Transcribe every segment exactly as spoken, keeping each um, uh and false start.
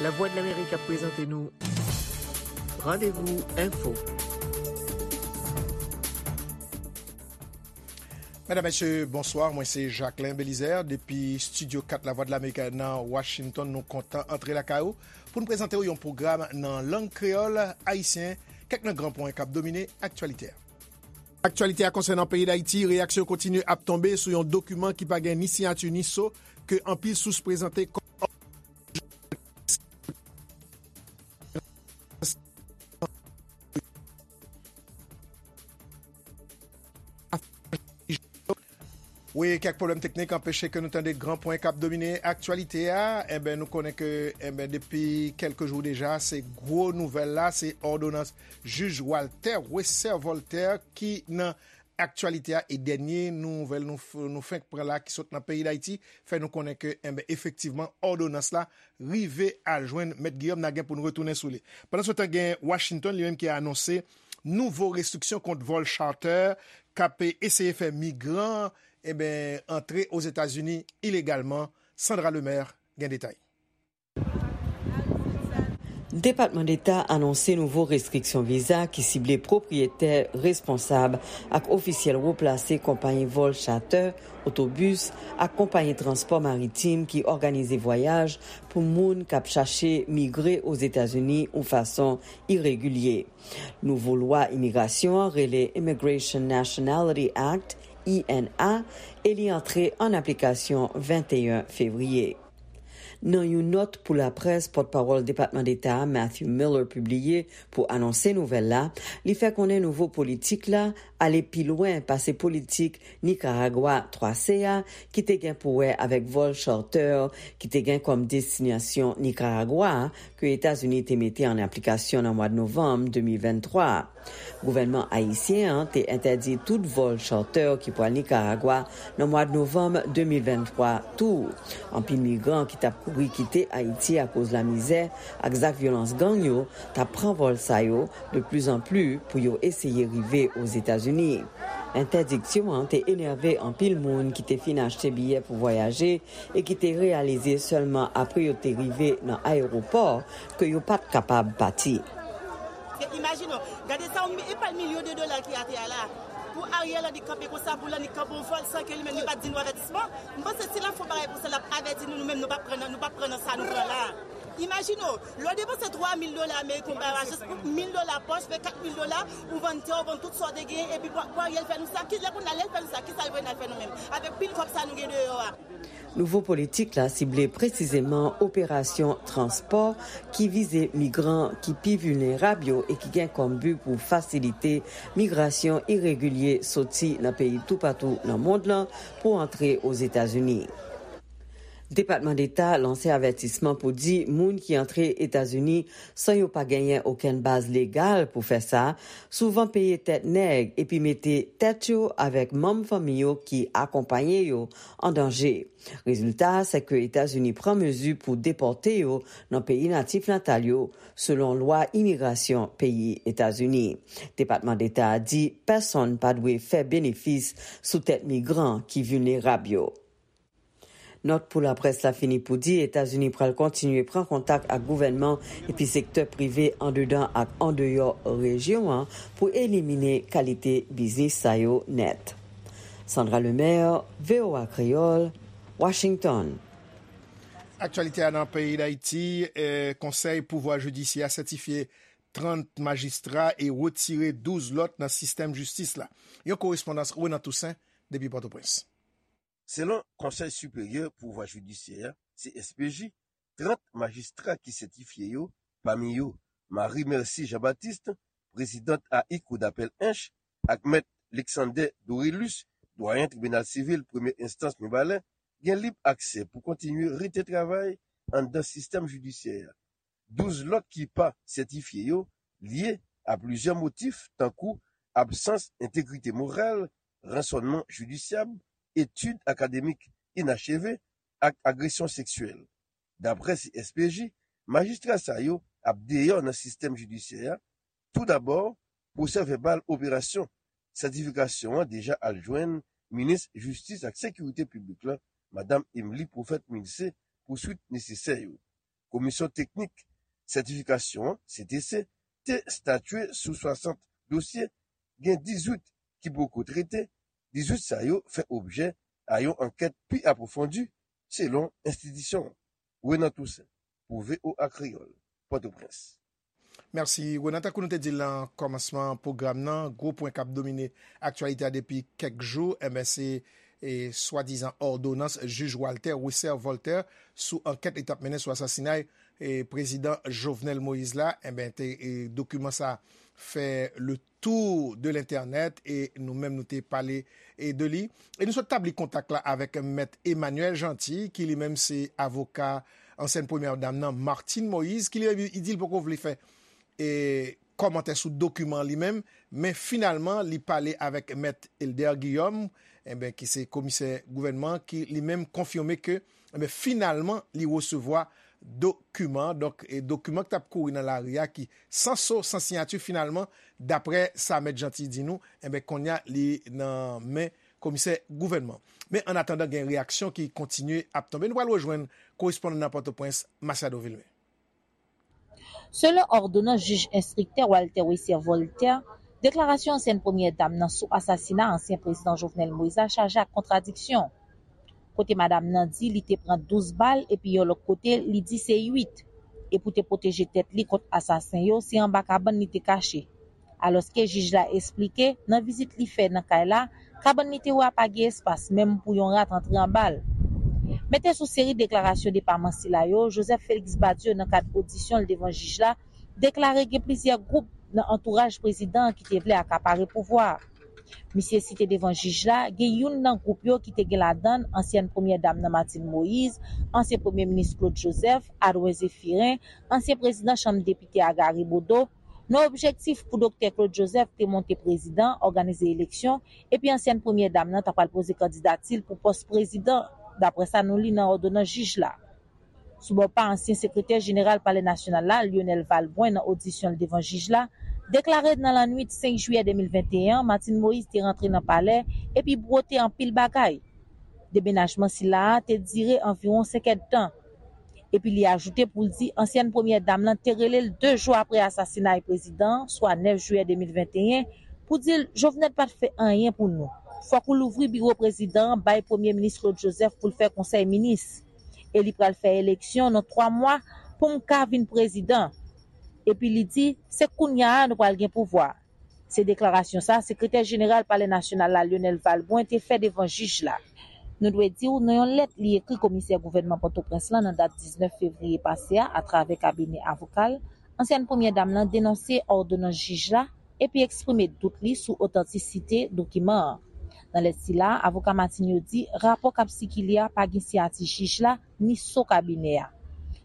Lavwadlamerik ap prezante nou Randevou Enfo. Medam, mesye, bonswa. Mwen se Jacquelin Belizaire depi Estidyo kat Lavwadlamerik nan Washington. Nou kontan antre lakay ou pou n prezante w yon pwogram nan lang kreyòl ayisyen, kèk nan gran pwen k ap domine aktyalite a. Aktyalite a konsènan peyi Dayiti, reyaksyon kontinye ap tonbe sou yon dokiman ki pa gen ni siyati ni so ke anpil sous prezante kòm Wi, kèk pwoblèm teknik anpeche ke nou tande gran pwen k ap domine aktyalite a. Enben, nou konnen ke, enben, depi kèlke jou deja, se gwo nouvèl la, se òdonans jij Walter Wesser Voltaire ki nan aktyalite a, e dènye nouvèl nou, f- nou fenk pran la ki sot nan peyi Dayiti fè nou konnen ke, enben, efektivman, òdonans la rive al jwenn Mèt Guillaume. N a gen pou n retounen sou li. Pandan se tan, gen Washington li menm ki anonse nouvo restriksyon kont vòl charter k ap eseye fè migran, enben, antre Ozetazini ilegalman. Sandra Lemaire gen detay. Depatman Deta anonse nouvo restriksyon viza ki sible pwopriyetè, responsab ak ofisyèl wo plase konpayi vòl chatè, otobis ak konpayi transpò maritim ki òganize vwayaj pou moun k ap chache migre Ozetazini yon fason iregilye. Nouvo lwa imigrasyon an rele Immigration Nationality Act, I N A, e li antre an aplikasyon venteyen fevriye. Nan yon nòt pou laprès, pòtpawòl Depatman Deta a, Matthew Miller, pibliye pou anonse nouvèl la, li fè konnen nouvo politik la ale pi lwen pase politik Nikaragwa twa C a, ki te gen pou wè avèk vòl charter ki te gen kòm destinasyon Nikaragwa a, ke Etazini te mete an aplikasyon nan mwa novanm de mil venntwa. Gouvènman ayisyen an te entèdi tout vòl charter ki pral Nikaragwa nan mwa novanm de mil venntwa tou. Anpil migran ki t ap kouri kite Ayiti akoz lamizè ak zak vyolans gang yo t ap pran vòl sa yo de plizanpli pou yo eseye rive Ozetazini. Entèdiksyon an te enève anpil moun ki te fin achte biyè pou vwayaje e ki te reyalize sèlman apre yo te rive nan ayewopò ke yo pa t kapab pati. Paske imajine w, gade sa, yon mi- e pa milyon de dola ki atè a la. Pou Ariel Henry kanpe konsa, pou l Henry kanpe yon vòl san ke li menm li pa t di nou avètisman. M panse si l ap fè yon bagay konsa, l ap avèti nou, nou menm nou p ap pran nan, nou p ap pran nan sa nou pran la. Imajine w, lè w depanse twa mil dola ameriken, w bay ajans pou mil dola pòch, fè kat mil dola, ou vann tè, ou vann tout sa w te genyen, epi pou, pou Ariel fè nou sa, ki lè kounye a lè l fè nou sa, kisa l vle n al fè nou menm? Avèk pil kòb sa nou gen deyò a. Nouvo politik la sible presizeman operasyon transpò ki vize migran ki pi vilnerab yo e ki gen kòm bi pou fasilite migrasyon iregilye soti nan peyi toupatou nan mond lan pou antre Ozetazini. Depatman Deta lanse avètisman pou di moun ki antre Etazini san yo pa genyen okenn baz legal pou fè sa, souvan peye tèt nèg epi mete tèt yo avèk manm fanmi yo ki akonpaye yo an danje. Rezilta a, se ke Etazini pran mezi pou depòte yo nan peyi natif natal yo, selon lwa imigrasyon peyi Etazini. Depatman Deta a di pèsonn pa dwe fè benefis sou tèt migran ki vilnerab yo. Nòt pou laprès la fini pou di Etazini pral kontinye pran kontak ak gouvènman epi sektè prive andedan ak andeyò rejyon an pou elimine kalite biznis sa yo nèt. Sandra Lemaire, V O A Kreyòl, Washington. Aktyalite a nan peyi Dayiti, eh, Konsèy Pouvwa Jidisyè a sètifye trant majistra e retire douz lòt nan sistèm jistis la. Yon korespondans Renan Toussaint depi Pòtoprens. Selon Konsèy Siperyè Pouvwa Jidisyè a, C S P J, trant majistra ki sètifye yo, pami yo Marie Mercy Jean Baptiste, prezidant A I Kou Dapèl Ench, ak mèt Lexander Dorilus, dwayen Tribinal Sivil Premye Enstans Mibalè, gen lib aksè pou kontinye rete travay anndan sistèm jidisyè a. Douz lòt ki pa sètifye yo lye a plizyè motif, tankou absans entegrite moral, ransònman jidisyab, etid akademik inacheve ak agresyon seksyèl. Daprè C S P J, majistra sa yo ap deyò nan sistèm jidisyè a. Toudabò, pwosèvèbal operasyon sètifikasyon an deja al jwenn minis jistis ak sekirite piblik la, madanm Emmelie Prophète Milcé, pou swit nesesè yo. Komisyon Teknik Sètifikasyon an, C T C, te statye sou swasant dosye, gen dizuit ki poko trete, dizuit sa yo fè objè a yon ankèt pi apwofondi, selon enstitisyon an. Renan Toussaint, pou V O A Kreyòl, Pòtoprens. Mèsi, Renan. Tankou nou te di l nan kòmansman pwogram nan, gwo pwen k ap domine aktyalite a depi kèk jou, enben, se e, swadizan òdonans jij Walter Wesser Voltaire sou ankèt li t ap mennen sou asasinay e, prezidan Jovenel Moïse la, enben, te, e, dokiman sa fè le tour de l'internet e nou menm nou te pale e, de li. E nou sot tabli kontak la avèk mèt Emmanuel Jeanty, ki li menm se avoka ansyèn premyè dam nan, Martine Moïse, ki li menm li di l poko vle fè e, kòmantè sou dokiman li menm, men finalman li pale avèk mèt Elder Guillaume, enben, ki se komisè gouvènman, ki li menm konfime ke enben, finalman li resevwa dokiman, donk e, dokiman ki t ap kouri nan lari a ki san so, san siyati, finalman, daprè sa mèt Jeanty di nou, enben, kounye a li nan men komisè gouvènman. Men an atandan, gen reyaksyon ki kontinye ap tonbe. Nou pral rejwenn korespondan nan Pòtoprens, Masiado Vilmé. Selon òdonans jij enstriktè Walter Wesser Voltaire, deklarasyon ansyèn premyè dam nan sou asasina ansyen prezidan Jovenel Moïse la chaje ak kontradiksyon. Kote madanm nan di li te pran douz bal epi yon lòt kote li di se uit. E pou te pwoteje tèt li kont asasen yo, se anba kabann li te kache. Alòske jij la esplike, nan vizit li fè nan kay la, kabann li te wè a pa gen espas menm pou yon rat antre anba l. Mete sou seri deklarasyon depaman sila yo, Joseph Félix Badio nan kad odisyon l devan jij la, deklare gen plizyè gwoup nan antouraj prezidan an ki te vle akapare pouvwa a. Misye site devan jij la, gen youn nan gwoup yo ki te gen ladan l ansyèn premyè dam nan Martine Moïse, ansyen premye minis Claude Joseph, Adwen Zéphirin, ansyen prezidan chanm depite a Gary Bodeau, nan objektif pou Doktè Claude Joseph te monte prezidan, òganize eleksyon, epi ansyèn premyè dam nan ta pral poze kandidati l pou pòs prezidan, daprè sa nou li nan òdonans jij la. Sou bò pa ansyen sekretè jeneral Palè Nasyonal la, Lionel Valbrun, nan odisyon l devan jij la, deklare nan lannwit senk jiyè de mil venteyen an, Martine Moïse te rantre nan palè epi bwote anpil bagay. Demenajman sila a te dire anviwon senk èdtan. Epi li ajoute pou l di ansyèn premyè dam lan te rele l de jou apre asasinay prezidan an, swa nèf jiyè de mil venteyen, pou di l Jovenel pa t fè anyen pou nou. Fòk ou louvri biwo prezidan an bay premye minis Claude Joseph pou l fè konsèy minis. E li pral fè eleksyon nan twa mwa pou m ka vin prezidan. Epi li di, se kounya a nou pral gen pouvwa. Se deklarasyon sa sekretè jeneral Palè Nasyonal la, Lionel Valbrun, te fè devan jij la. Nou dwe di w, nan yon lèt li ekri komisè gouvènman Pòtoprens lan nan dat diznèf fevriye pase a, atravè kabinè avoka l, ansyèn premyè dam lan denonse òdonans jij la epi eksprime dout li sou otantisite dokiman an. Nan lèt sila, avoka Martine yo di rapò k ap sikile a pa gen siyati jij la ni so kabinè a.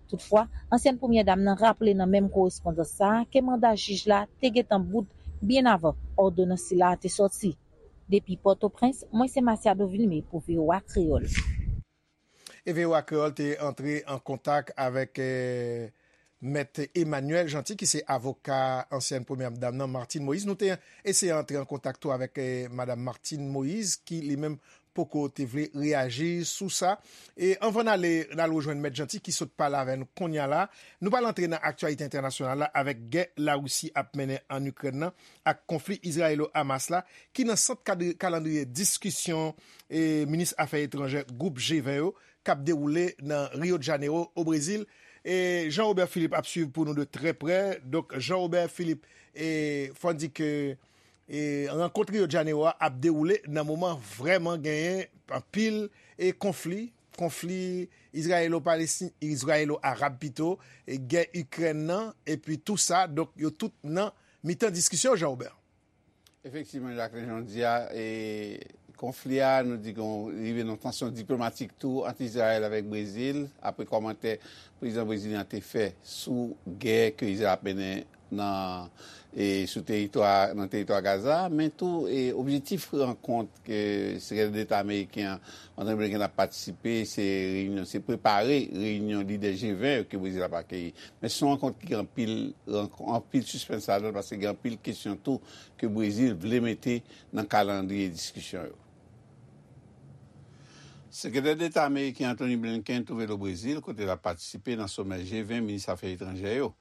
Toutfwa, ansyèn premyè dam nan raple nan menm korespondans sa a ke manda jij la te gentan bout byen avan òdonans sila a te sòti. Depi Pòtoprens, mwen se Masiado Vilmé pou V O A Kreyòl. E V O A Kreyòl te antre an kontak avèk eh, mèt Emmanuel Jeanty, ki se avoka ansyèn premyè dam nan, Martine Moïse. Nou te eseye antre an kontak tou avèk eh, madanm Martine Moïse, ki li menm poko te vle reyaji sou sa. E anvan n ale, n al rejwenn mèt Jeanty ki sot pale avè nou kounye a la. Nou pral antre nan aktyalite entènasyonal la avèk gè Larisi ap mennen ann Ikrèn nan ak konfli Izrayelo-Hamas la, ki nan sant kad- kalandriye diskisyon e minis afè etranjè gwoup G ven yo k ap dewoule nan Rio de Janeiro, o Brezil. E Jean Robert Philippe ap swiv pou nou de trè prè. Donk, Jean Robert Philippe, e fò n di ke e rankont Rio de Janeiro a ap dewoule nan moman vrèman genyen anpil e konfli, konfli Izrayelo-Palestin, Izrayelo-Arab pito, e gè Ikrèn nan, epi tou sa, donk yo tout nan mitan diskisyon, Jean Robert. Efektivman, Jacquelin, jan w di a, e, konfli a, nou di ke rive nan tansyon diplomatik tou ant Izrayèl avèk Brezil, apre kòmantè prezidan brezilyen an te fè sou gè ke Izrayèl ap mennen nan, e, sou teritwa, nan teritwa Gaza, men tou, e, objektif rankont ke sekretè deta ameriken an, Antony Blinken, ap patisipe, se reyinyon, se prepare reyinyon lidè G ven yo ke Brezil ap akeyi. Men se yon rankont ki gen anpil, anpil sispens ladan l, paske gen anpil kesyon tou ke Brezil vle mete nan kalandriye diskisyon yo. Sekretè Deta ameriken Antony Blinken twouve l o Brezil, kote l ap patisipe nan somè G ven minis afè etranjè yo.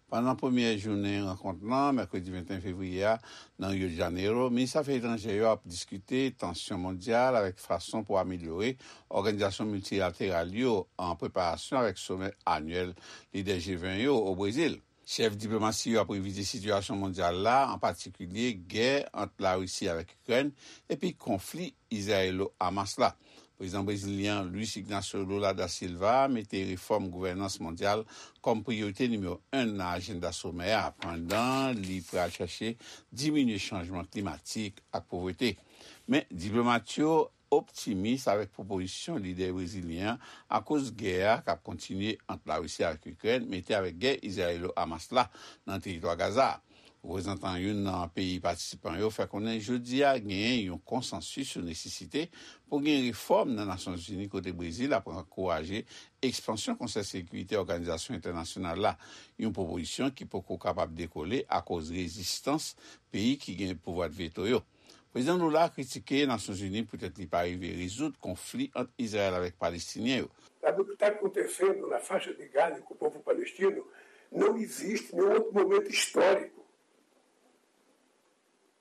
Pandan premyè jounen rankont lan, mèkredi venteyen fevriye a, nan Rio de Janeiro, minis afè etranjè yo ap diskite tansyon mondyal avèk fason pou amelyore òganizasyon miltilateral yo, an preparasyon avèk somè anyèl lidè G ven yo o Brezil. Chèf diplomasi yo ap revize sitiyasyon mondyal la, an patikilye gè ant Larisi avèk Ikrèn epi konfli Izrayelo-Hamas la. Prezidan brezilyen an, Luiz Ignacio Lula da Silva, mete refòm gouvènans mondyal kòm priyorite nimewo en nan ajanda somè a, pandan li pral chache diminye chanjman klimatik ak povrete. Men, diplomat yo optimis avèk pwopozisyon lidè brezilyen an akoz gè a k ap kontinye ant Larisi ak Ikrèn, mete avèk gè Izrayelo-Hamas la nan teritwa Gaza a. Reprezantan youn nan peyi patisipan yo fè konnen jodi a genyen yon konsansis sou nesesite pou gen refòm nan Nasyonzini, kote Brezil ap ankouraje ekspansyon Konsèy Sekirite Òganizasyon Entènasyonal la, yon pwopozisyon ki poko kapab dekole akoz rezistans peyi ki gen pouvwa veto yo. Prezidan Lula kritike Nasyonzini poutèt li pa rive rezoud konfli ant Izrayèl avèk Palestinyen yo. La verità conta è ferro, la faccia di Gaza e il popolo palestino non esiste in un altro momento storico.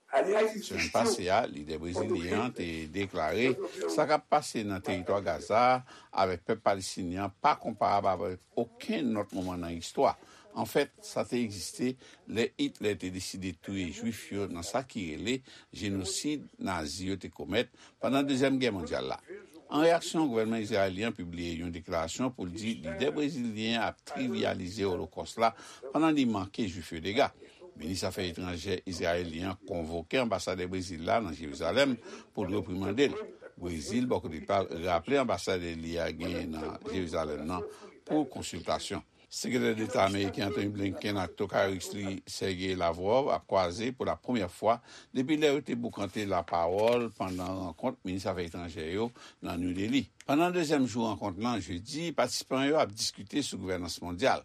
Semèn pase a, lidè brezilyen an te deklare sa k ap pase nan teritwa Gaza a avèk pèp palestinyen an pa konparab avèk okenn lòt moman nan istwa. Anfèt, sa te egziste lè Itlè te deside touye Jwif yo nan sa ki rele jenosid Nazi yo te komèt pandan Dezyèm Gè Mondyal la. An reyaksyon, gouvènman izrayelyen an pibliye yon deklarasyon pou l di lidè brezilyen an ap trivyalize Olokòs la pandan li manke Jwif yo dega. Minis afè etranjè izrayelyen an konvoke anbasadè Brezil la nan Jerizalèm pou l reprimande l. Brezil, bò kote pa l, raple anbasadè li a genyen nan Jerizalèm nan pou konsiltasyon. Sekretè Deta ameriken Antony Blinken ak Tokay Ris li Sergey Lavrov ap kwaze pou la premyè fwa depi lè yo te boukante lapawòl pandan rankont minis afè etranjè yo nan New Delhi. Pandan dezyèm jou rankont lan, jedi, patisipan yo ap diskite sou gouvènans mondyal.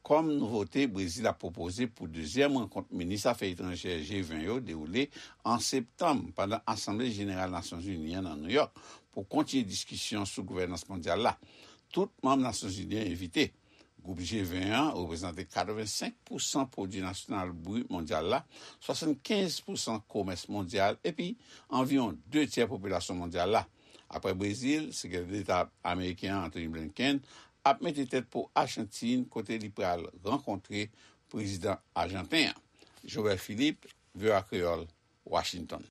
Kòm nouvote, Brezil ap pwopoze pou dezyèm rankont minis afè etranjè G ven yo dewoule an septanm pandan Asanble Jeneral Nasyonzini an nan Nouyòk pou kontinye diskisyon sou gouvènans mondyal la. Tout manm Nasyonzini an envite. Gwoup G ven an reprezante katrevensenk pousan pwodui nasyonal brit mondyal la, swasannkenz pousan komès mondyal epi anviwon de tyè popilasyon mondyal la. Apre Brezil, Sekretè Deta ameriken an, Antony Blinken, ap mete tèt pou Achantin, kote li pral rankontre prezidan ajanten an. Joel Philippe, V O A Kreyòl, Washington.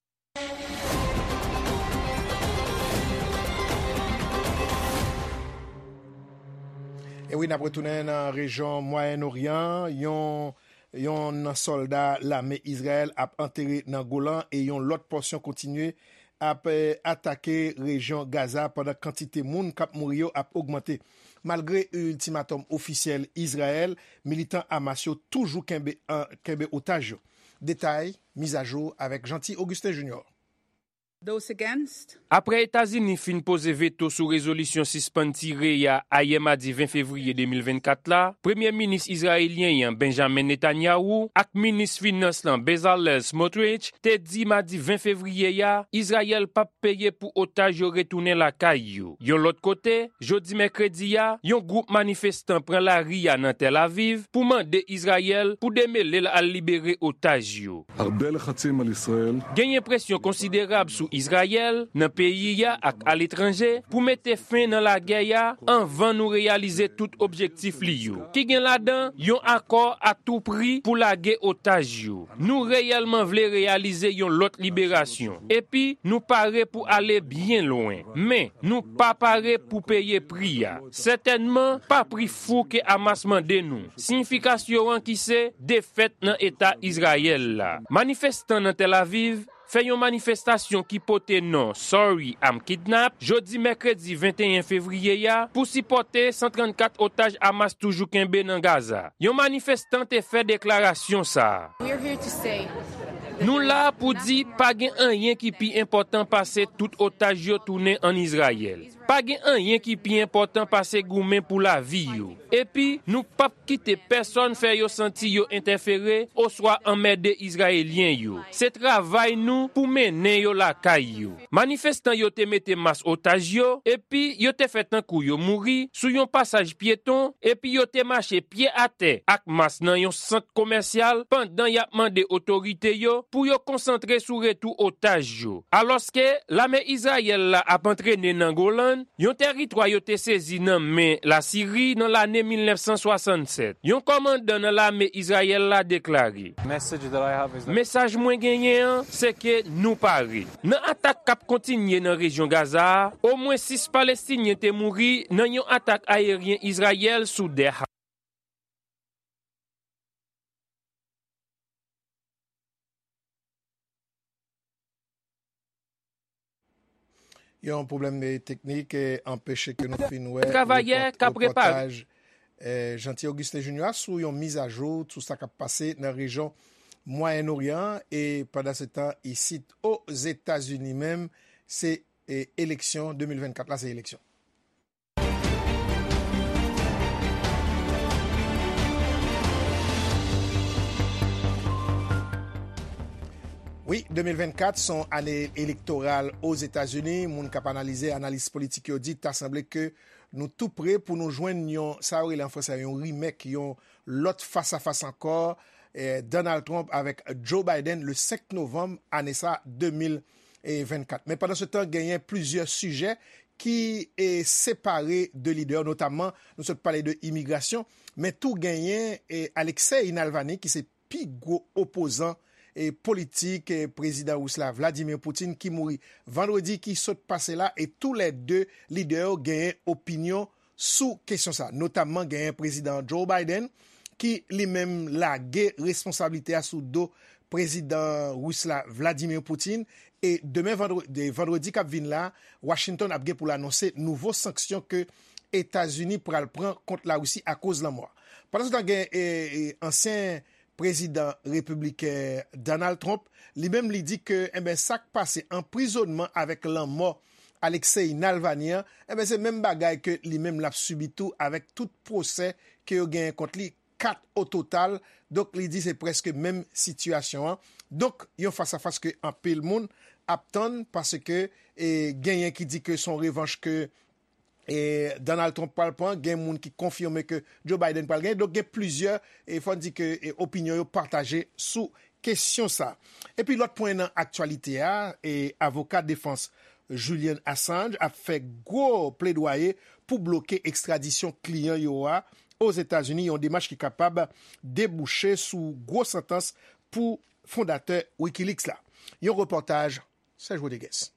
E wi, n ap retounen nan rejyon Mwayen Oryan. Yon, yon sòlda lame Izrayèl ap antere nan Golan e yon lòt pòsyon kontinye ap, eh, atake rejyon Gaza pandan kantite moun k ap mouri yo ap ogmante. Malgre iltimatòm ofisyèl Izrayèl, militan Hamas yo toujou kenbe, an, kenbe otaj yo. Detay, mizajou avèk Jeanty Augustin Junior. Those against? Apre Etazini fin poze veto sou rezolisyon sispann tire a ayè madi ven fevriye de mil vennkat la, Premye Minis izrayelyen an, Benjamin Netanyahu, ak Minis Finans lan, Bezalel Smotrich, te di madi ven fevriye a, Izrayèl p ap peye pou otaj yo retounen lakay yo. Yon lòt kote, jodi mèkredi a, yon gwoup manifestan pran lari a nan Tèl Aviv pou mande Izrayèl pou demele l al libere otaj yo. הרבה לחצים על ישראל. Genyen presyon konsiderab sou Izrayèl, nan peyi a ak aletranje, pou mete fen nan lagè a anvan nou reyalize tout objektif li yo, ki gen ladan yon akò a tou pri pou lage otaj yo. Nou reyèlman vle reyalize yon lòt liberasyon, epi nou pare pou ale byen lwen. Men, nou pa pare pou peye pri a. Sètènman, pa pri fou ke Hamas mande nou. Siyifikasyon an ki se defèt nan Eta Izrayèl la. Manifestan nan Tèl Aviv fè yon manifestasyon ki pote non Sorry, I'm Kidnapped jodi mèkredi venteyen fevriye a pou sipòte san trannkat otaj Hamas toujou kenbe nan Gaza. Yon manifestan te fè deklarasyon sa a. We're here to say Nou la pou di pa gen anyen ki pi enpòtan pase tout otaj yo tounen ann Izrayèl. Pa gen anyen ki pi enpòtan pase goumen pou lavi yo. Epi, nou p ap kite pèsonn fè yo santi yo entèfere oswa anmède Izrayelyen yo. Se travay nou pou mennen yo lakay yo. Manifestan yo te mete mas otaj yo, epi yo te fè tankou yo mouri sou yon pasaj pyeton, epi yo te mache pye atè ak mas nan yon sant komèsyal pandan y ap mande otorite yo pou yo konsantre sou retou otaj yo. Alòske lame Izrayèl la ap antrene nan Golan, yon tèritwa yo te sezi nan men Lasiri nan lane mil nèf san swasannsèt. Yon kòmandan nan lame Izrayèl la deklare, Mesaj mwen genyen an, se ke nou pare. Nan atak k ap kontinye nan rejyon Gaza a, omwen sis Palestinyen te mouri nan yon atak ayeryen Izrayèl sou Deir Yon pwoblèm de teknik eh, anpeche ke nou fin wè Travayè k ap repare. Repòtaj eh, Jeanty Augustin Junior sou yon mizajou sou sa k ap pase nan rejyon Mwayen Oryan an e pandan se tan isit Ozetazini menm se eh, eleksyon de mil vennkat la se eleksyon. Wi, de mil vennkat se yon ane elektoral Ozetazini. Moun k ap analize, analis politik yo di ta sanble ke nou tou pre pou nou jwenn yon, sa yo rele an franse, yon remake, yon lòt fasafas ankò, eh, Donald Trump avèk Joe Biden le senk novanm ane sa de mil vennkat. Men pandan se tan, genyen plizyè sijè ki eh, separe de lidè yo, notamman nou sot pale de imigrasyon, men tou genyen eh, Alexei Navalny ki se pi gwo opozan eh, politik eh, prezidan ris la Vladimir Putin ki mouri vandredi ki sot pase la e tou lè de lidè yo genyen opinyon sou kesyon sa. Notamman genyen prezidan Joe Biden ki li menm lage responsablite a sou do prezidan ris la Vladimir Putin e demen vandredi k ap vin la Washington ap gen pou l anonse nouvo sanksyon ke Etazini pral pran kont Larisi akoz lanmò a. Pandan se tan gen ansyen prezidan repibliken Donald Trump, li menm li di ke enben sa k pase anprizonnman avèk lanmò Alexei Navalny an, enben se menm bagay ke li menm l ap sibi tou avèk tout pwosè ke yo genyen kont li, kat ototal. Donk li di se prèske menm sitiyasyon an. Donk yon fasafas ke anpil moun ap tann paske genyen ki di ke se yon revanch ke Donald Trump pral pran, gen moun ki konfime ke Joe Biden pral genyen. Donk gen plizyè, fò n di ke opinyon yo pataje sou kesyon sa. Epi lòt pwen nan aktyalite a, avoka defans Julian Assange ap fè gwo pledwaye pou bloke ekstradisyon kliyan yo a Ozetazini, yon demach ki kapab debouche sou gwo santans pou fondatè Wikileaks la. Yon repòtaj Serge Rodriguez.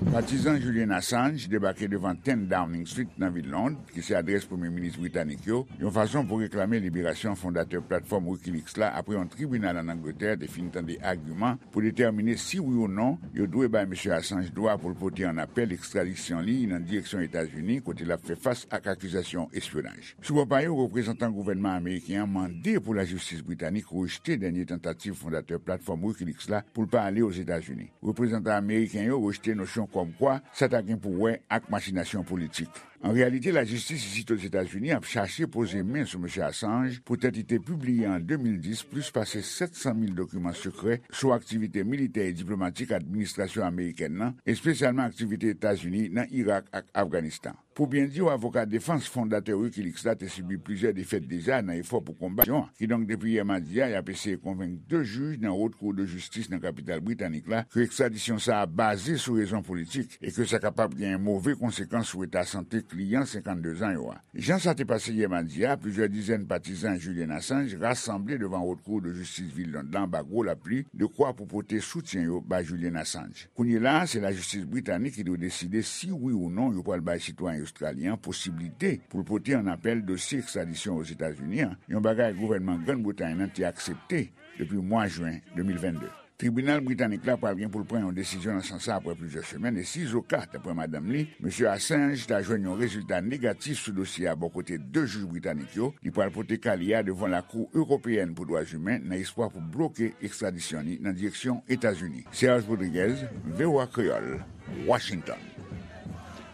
Patizan Julian Assange debake devan ten Downing Street nan vil Lond, ki se adrès premye minis britanik yo, yon fason pou reklame liberasyon fondatè platfòm Wikileaks la apre yon tribinal ann Angletè te fin tande agiman pou detèmine si wi ou non yo dwe bay mesye Assange dwa pou l pote an apèl ekstradisyon li nan direksyon Etazini kote l ap fè fas ak akizasyon espyonaj. Sou bò pa yo, reprezantan gouvènman ameriken an mande pou lajistis britanik rejte dènye tantativ fondatè platfòm Wikileaks la pou l pa ale Ozetazini. Reprezantan ameriken yo rejte nosyon kòmkwa sa ta gen pou wè ak machinasyon politik. An reyalite, lajistis isit Ozetazini ap chache poze men sou mesye Assange poutèt li te pibliye an de mil dis plis pase sèt san mil dokiman sekrè sou aktivite militè e diplomatik administrasyon amerikèn nan, espesyalman aktivite Etazini nan Irak ak Afganistan. Pou byen di w, avoka defans fondatè Wikileaks la te sibi plizyè defèt deja nan efò pou konbat aksyon an. Kidonk, depi yè madi a, y ap eseye konvenk de jij nan Wot Kou de Jistis nan kapital britanik la ke ekstradisyon sa a baze sou rezon politik e ke sa kapab gen move konsekans sou eta sante kliyan senkanndezan yo a. Jan sa te pase yè madi a, plizyè dizèn patizan Julian Assange rasanble devan Wot Kou de Jistis vil Lond la anba gwo lapli, dekwa pou pote soutyen yo bay Julian Assange. Kounye la a, se lajistis britanik ki dwe deside si wi ou non yo pral bay sitwayen ostralyen an posiblite pou l pote an apèl dosye ekstradisyon Ozetazini an, yon bagay gouvènman Grann Bretay nan te aksepte depi mwa jen de mil vennde. Tribinal britanik la pral gen pou l pran yon desizyon nan sans sa apre plizyè semèn, e si Zoka ta pran madanm li, mesye Assange ta jwenn yon rezilta negatif sou dosye a bò kote de jij britanik yo, li pral pote ka li a devan Lakou Ewopeyèn pou Dwa Imen nan espwa pou bloke ekstradisyon li nan direksyon Etazini. Serge Rodriguez, V O A Kreyòl, Washington.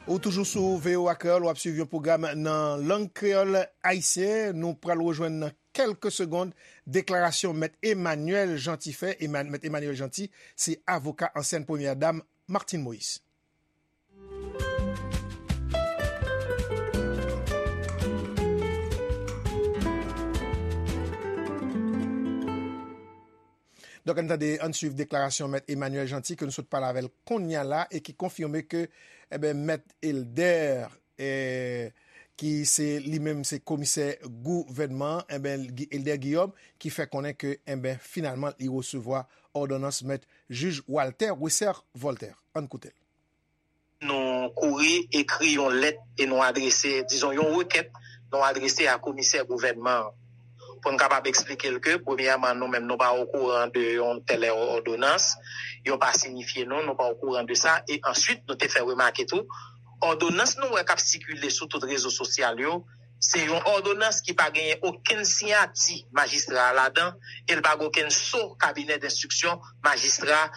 Ou toujou sou V O A Kreyòl, w ap swiv yon pwogram nan lang kreyòl ayisyen. Nou pral rejwenn nan kèlke segonn deklarasyon Mèt Emmanuel Jeanty fè. Eman-, Mèt Emmanuel Jeanty se avoka ansyèn premyè dam Martine Moïse. Donk, ann tande, ann swiv deklarasyon Mèt Emmanuel Jeanty ke nou sot pale avè l kounye a la e ki konfime ke, enben, Mèt Elder, eh, ki se li menm se komisè gouvènman, enben, Gi-, Elder Guillaume, ki fè konnen ke, enben, finalman, li resevwa òdonans Mèt Jij Walter Wesser Voltaire. Ann koute l. Nou kouri ekri yon lèt e nou adrese, dizon, yon rekèt nou adrese a komisè gouvènman an. Pou n kapab eksplike l ke, premyèman, nou menm, nou pa okouran de yon tèl òdonans, yo pa sinifye nou, nou pa okouran de sa, e answit, nou te fè remake tou, òdonans nou wè k ap sikile sou tout rezo sosyal yo, se yon òdonans ki pa genyen okenn siyati majistra a ladan, e l pa gen okenn so kabinè denstriksyon majistra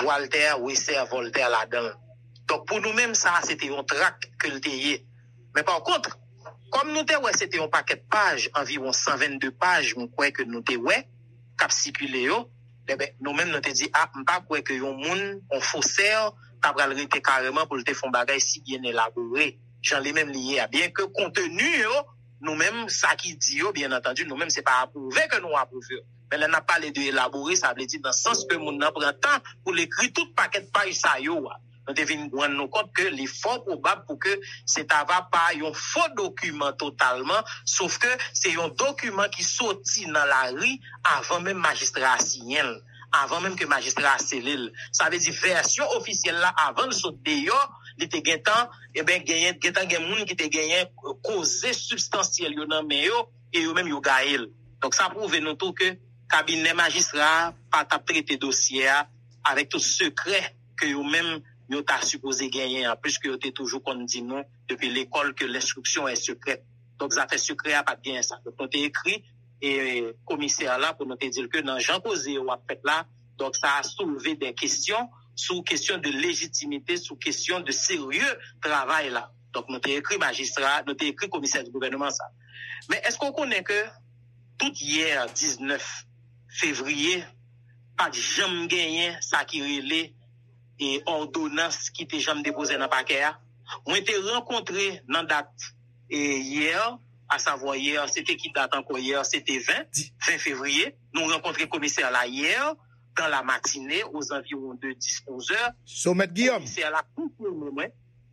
Walter Wesser Voltaire ladan l. Donk, pou nou menm, sa a se te yon trak ke l te ye. Men pa kont, kòm nou te wè se te yon pakèt paj, anviwon san vennde paj, m kwè ke nou te wè, k ap sikile yo, enben, nou menm, nou te di, a, m pa kwè ke yon moun, yon fosè, ta pral rete kareman pou l te fè yon bagay si byen elabore, jan li menm li ye a. Byenke konteni yo, nou menm, sa ki di yo, byen antandi, nou menm, se pa apwouve ke nou apwouve yo. Men lè n ap pale de elabore, sa vle di nan sans ke moun nan pran tan pou l ekri tout pakèt paj sa yo a. Nou te vin rann nou kont ke li fò pwobab pou ke se ta va pa yon fo dokiman totalman, sof ke se yon dokiman ki soti nan lari avan menm majistra a siyen l, avan menm ke majistra a sele l. Sa vle di vèsyon ofisyèl la, avan l sot deyò, li te gentan, enben, genyen, gentan gen moun ki te genyen koze sibstansyèl yo nan men yo, e yo menm yo gaye l. Donk, sa pwouve nou tou ke kabinè majistra a pa t ap trete dosye a avèk tout sekrè ke yo menm yo ta sipoze genyen an, piske yo te toujou konn di nou depi lekòl ke l'instruction est secrète. Donk, zafè sekrè a pa t genyen sa. Donk, nou te ekri, e, komisè la pou nou te di l ke nan jan koze yo ap fèt la, donk, sa a soulve de kesyon sou kesyon de lejitimite, sou kesyon de serye travay la. Donk, nou te ekri majistra, nou te ekri komisè di gouvènman sa. Men èske w konnen ke tout yè diznèf fevriye, pa t janm genyen sa ki rele, e, òdonans ki te janm depoze nan pakè a? Mwen te rankontre nan dat, e, yè, asavwa yè, se te ki dat ankò yè? Se te ven, ven fevriye. Nou rankontre komisè la yè, dans la matinée, aux environs de dix, onze heures. Somèt Guillaume. Komisè la konfime mwen,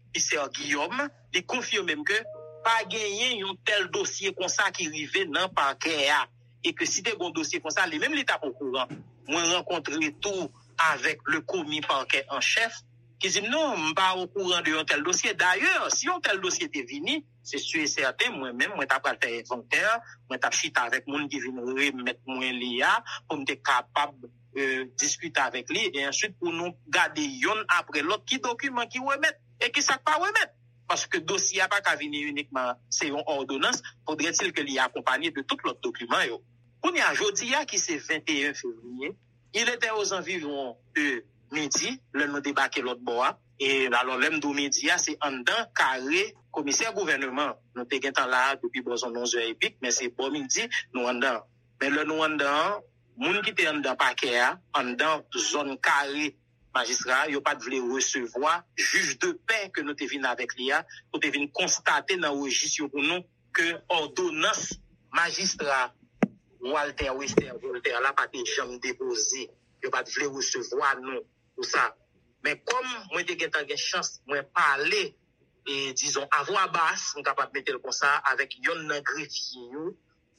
komisè Guillaume, li konfime m ke pa genyen yon tèl dosye konsa ki rive nan pakè a. E ke si te gon dosye konsa, li menm li t ap okouran. Mwen rankontre tou avèk le commis parquet en chef, ki di m, "Non, m pa okouran de yon tèl dosye." Dayè, si yon tèl dosye te vini, se si e sèten, mwen menm, mwen ta pral fè envantè, mwen t ap chita avèk moun ki vin remèt mwen li a, pou m te kapab, e, diskite avèk li, e answit pou nou gade yonn apre lòt ki dokiman ki remèt, e ki sa k pa remèt. Paske dosye a pa ka vini inikman, se yon òdonans, faudrait-il ke li akonpanye de tout lòt dokiman yo. Kounye a, jodi a, ki se venteyen fevriye, il était aux environs de midi, lè nou debake lòt bò a. E alò, lè m di w midi a, se anndan kare komisè gouvènman. Nou te gentan la a depi bò zòn onz è epi, men se bò midi, nou anndan. Men lè nou anndan an, moun ki te anndan pakè a, anndan zòn kare majistra a, yo pa t vle resevwa jij de pè ke nou te vin avèk li a, pou te vin konstate nan rejis yo pou nou ke òdonans majistra Walter Wester Voltaire la pa te janm depoze. Yo pa t vle resevwa nou pou sa. Men kòm mwen te gentan gen chans, mwen pale, e, dizon, a vwa bas, m kapab mete l konsa, avèk yonn nan grefye yo,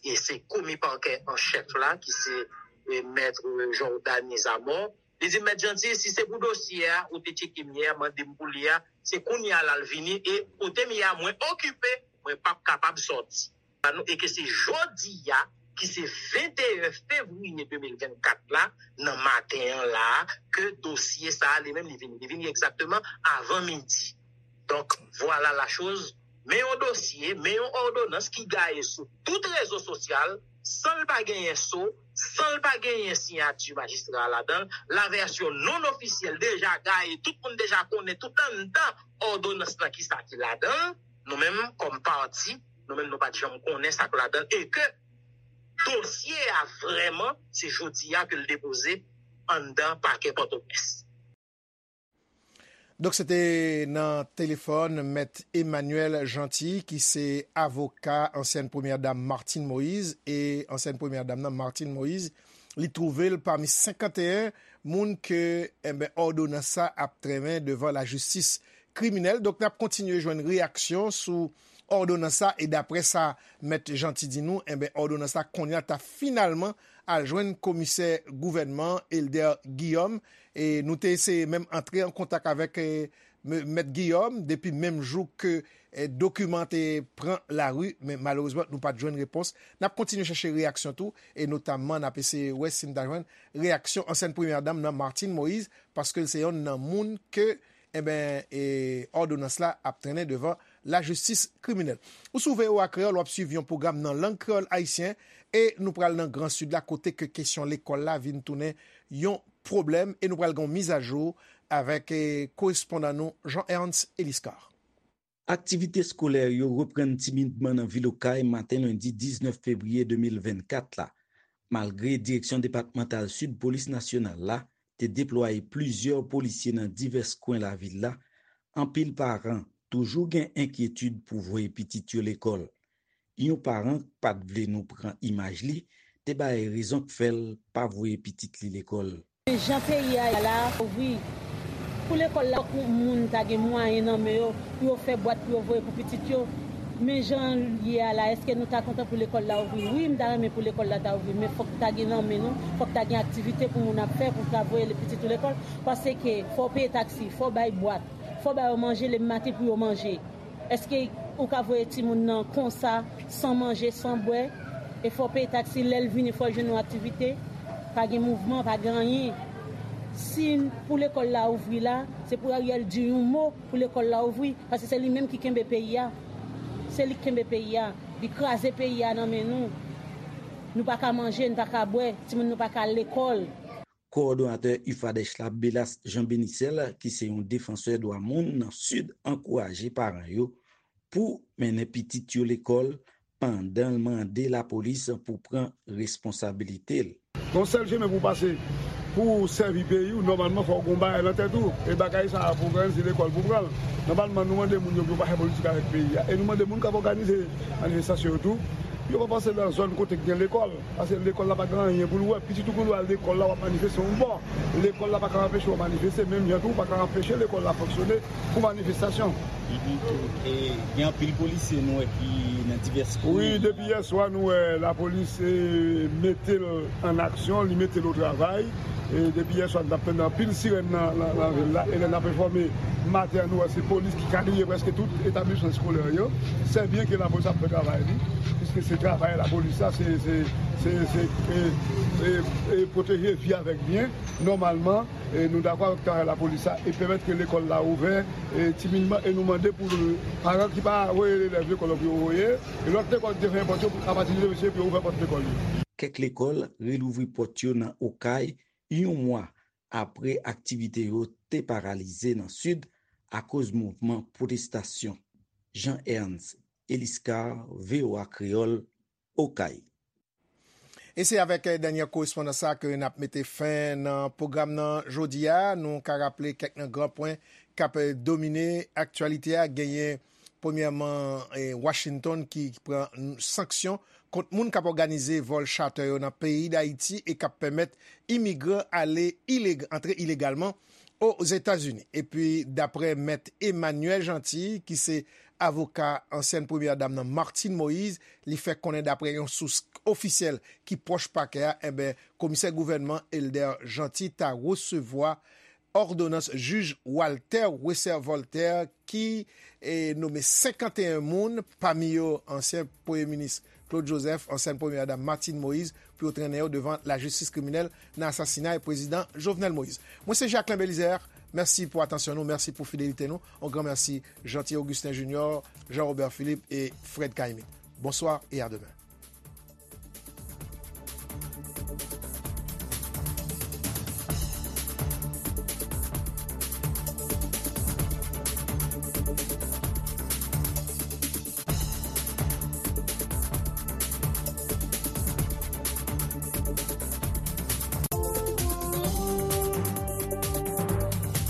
e se komi pakè an chèf la, ki se, e, mèt Jordany Zamor. Li di m, "Mèt Jeanty, si se pou dosye a, ou te tcheke m yè, mande m pou li a, se kounye a l al vini, e kote m ye a, mwen okipe, mwen p ap kapab sòti." E ke se jodi a, ki se venteyen fevriye de mil vennkat la, nan maten an la, ke dosye sa a li menm li vini. Li vini egzakteman avan midi. Donk, vwala la choz. Men yon dosye, men yon òdonans ki gaye sou tout rezo sosyal, san l pa genyen so, san l pa genyen siyati majistra a ladan l, lavèsyon non ofisyèl deja gaye, tout moun deja konnen tout anndan òdonans lan ki sa ki ladan l. Nou menm, kòm pati, nou menm nou pa t janm konnen sa k ladan l, e ke dosye a vrèman, se jodi a ke l depoze anndan pakè Pòtoprens. Donk, se te nan telefòn Mèt Emmanuel Jeanty, ki se avoka ansyèn premyè dam Martine Moïse, e ansyèn premyè dam nan, Martine Moïse, li twouve l pami senkanteyen moun ke, enben, òdonans sa ap trennen devan lajistis kriminèl. Donk, n ap kontinye jwenn reyaksyon sou òdonans sa, e daprè sa Mèt Jeanty di nou, enben, òdonans sa kounye a ta finalman al jwenn komisè gouvènman, Elder Guillaume, e nou te eseye menm antre an kontak avèk, e, M-, Mèt Guillaume, depi menm jou ke, e, dokiman te pran lari, men malerezman, nou pa t jwenn repons. N ap kontinye chèche reyaksyon tou, e notamman, n ap eseye wè si n ta jwenn reyaksyon ansyèn premyè dam nan, Martine Moïse, paske l se yonn nan moun ke, enben, e, òdonans la ap trennen devan lajistis kriminèl. Ou sou V O A Kreyòl, w ap swiv yon pwogram nan lang kreyòl ayisyen, e nou pral nan Gran Sid la, kote ke kesyon lekòl la vin tounen yon pwoblèm, e nou pral gen yon mizajou avèk, e, korespondan nou, Jean Ernst Eliscar. Aktivite eskolè yo reprann timidman nan vil Okay maten lendi diznèf fevriye de mil vennkat la. Malgre Direksyon Depatmantal Sid Polis Nasyonal la te deplwaye plizyè polisye nan divès kwen lavil la, anpil paran toujou gen enkyetid pou voye pitit yo lekòl. Yon paran k pa t vle nou pran imaj li te bay rezon k fè l pa voye pitit li lekòl. Jan peyi a ye la, wi. Pou lekòl la, fòk moun ta gen mwayen nan men yo, pou yo fè bwat, pou yo voye pou pitit yo. Men jan l ye a la, èske nou ta kontan pou lekòl la ouvri? Wi, m ta renmen pou lekòl la ta ouvri, men fòk ta gen nan men nou, fòk ta gen aktivite pou moun ap fè, pou ta voye pitit ou lekòl. Paske fò w peye taksi, fò w bay bwat, fò w ba yo manje, le maten pou yo manje. Èske ou ka voye timoun nan konsa, san manje, san bwè? E fò w peye taksi, lè l vini, fò l jwenn yon aktivite. Pa gen mouvman, pa gen anyen. Si pou lekòl la ouvri la, se pou Ariel di yon mo pou lekòl la ouvri, paske se li menm ki kenbe peyi a. Se li ki kenbe peyi a. Li kraze peyi a nan men nou. Nou pa ka manje, nou pa ka bwè, timoun nou pa ka al lekòl. Kowòdonatè UFADEH la, Belas Jean Benicel, ki se yon defansè dwa moun nan Sid, ankouraje paran yo pou mennen pitit yo lekòl pandan l mande lapolis pou pran responsabilite l. Gon sèl chemen pou w pase, pou w sèvi peyi w, nòmalman fò w gon bagay nan tèt ou. E bagay sa a pou w pran l, se lekòl pou w pran l. Nòmalman, nou mande moun yo pou yo pa fè politik avèk peyi a. E nou mande moun k ap òganize manifestasyon yo tou, pou yo pa pase nan zòn kote k gen lekòl. Paske lekòl la pa gen anyen pou l wè. Pitit ou pou l al lekòl la, w ap manifeste yon bò. Lekòl la pa ka anpeche w manifeste, menm jan tou, ou pa ka anpeche lekòl la fonksyone pou manifestasyon. Mhm. E gen anpil polisye nou wè ki nan divès komin. Wi, depi yè swa nou wè lapolis, e, mete l an aksyon, li mete l o travay. E depi yè swa, n ap tande anpil sirèn nan, nan, nan vil la. E lè n ap enfòme maten an, nou wè se polis ki kadriye prèske tout etablisman eskolè yo. Se byen ke lapolis ap fè travay li, piske se travay lapolis la, se, se, se, se, e, e, e pwoteje vi avèk byen. Nòmalman, e, nou dakò avèk travay lapolis la e pèmèt ke lekòl la ouvè, e, timidman, e nou mande pou paran ki pa voye elèv lekòl yo pou yo voye, e lòt lekòl ki te fèmen pòt yo, apati de demen pou yo ouvè pòt lekòl yo. Kèk lekòl relouvri pòt yo nan Okay, yon mwa apre aktivite yo te paralize nan Sid akoz mouvman pwotestasyon. Jean Ernst Eliscar, V O A Kreyòl, Okay. E se avèk, eh, dènye korespondans sa ke n ap mete fen nan pwogram nan jodi a. Nou ka raple kèk nan gran pwen k ap, eh, domine aktyalite a. Genyen, premyèman, eh, Washington ki pran sanksyon kont moun k ap òganize vòl chatè yo nan peyi Dayiti e k ap pèmèt imigran ale ileg-, antre ilegalman Ozetazini. Epi, daprè Mèt Emmanuel Jeanty, ki se avoka ansyèn premyè dam nan, Martine Moïse, li fè konnen, daprè yon sous ofisyèl ki pwòch pakè a, enben, komisè gouvènman Elder Jeanty ta resevwa òdonans jij Walter Wesser Voltaire ki, eh, nonmen senkanteyen moun, pami yo ansyen premye minis Claude Joseph, ansyen premye dam Martine Moïse, pou yo trennen yo devan lajistis kriminèl nan asasinay prezidan Jovenel Moïse. Mwen se Jacquelin Belizaire. Mèsi pou atansyon nou, mèsi pou fidelite nou. On gran mèsi Jeanty Augustin Junior, Jean Robert Philippe e Fred Caïmite. Bonsoir et à demain.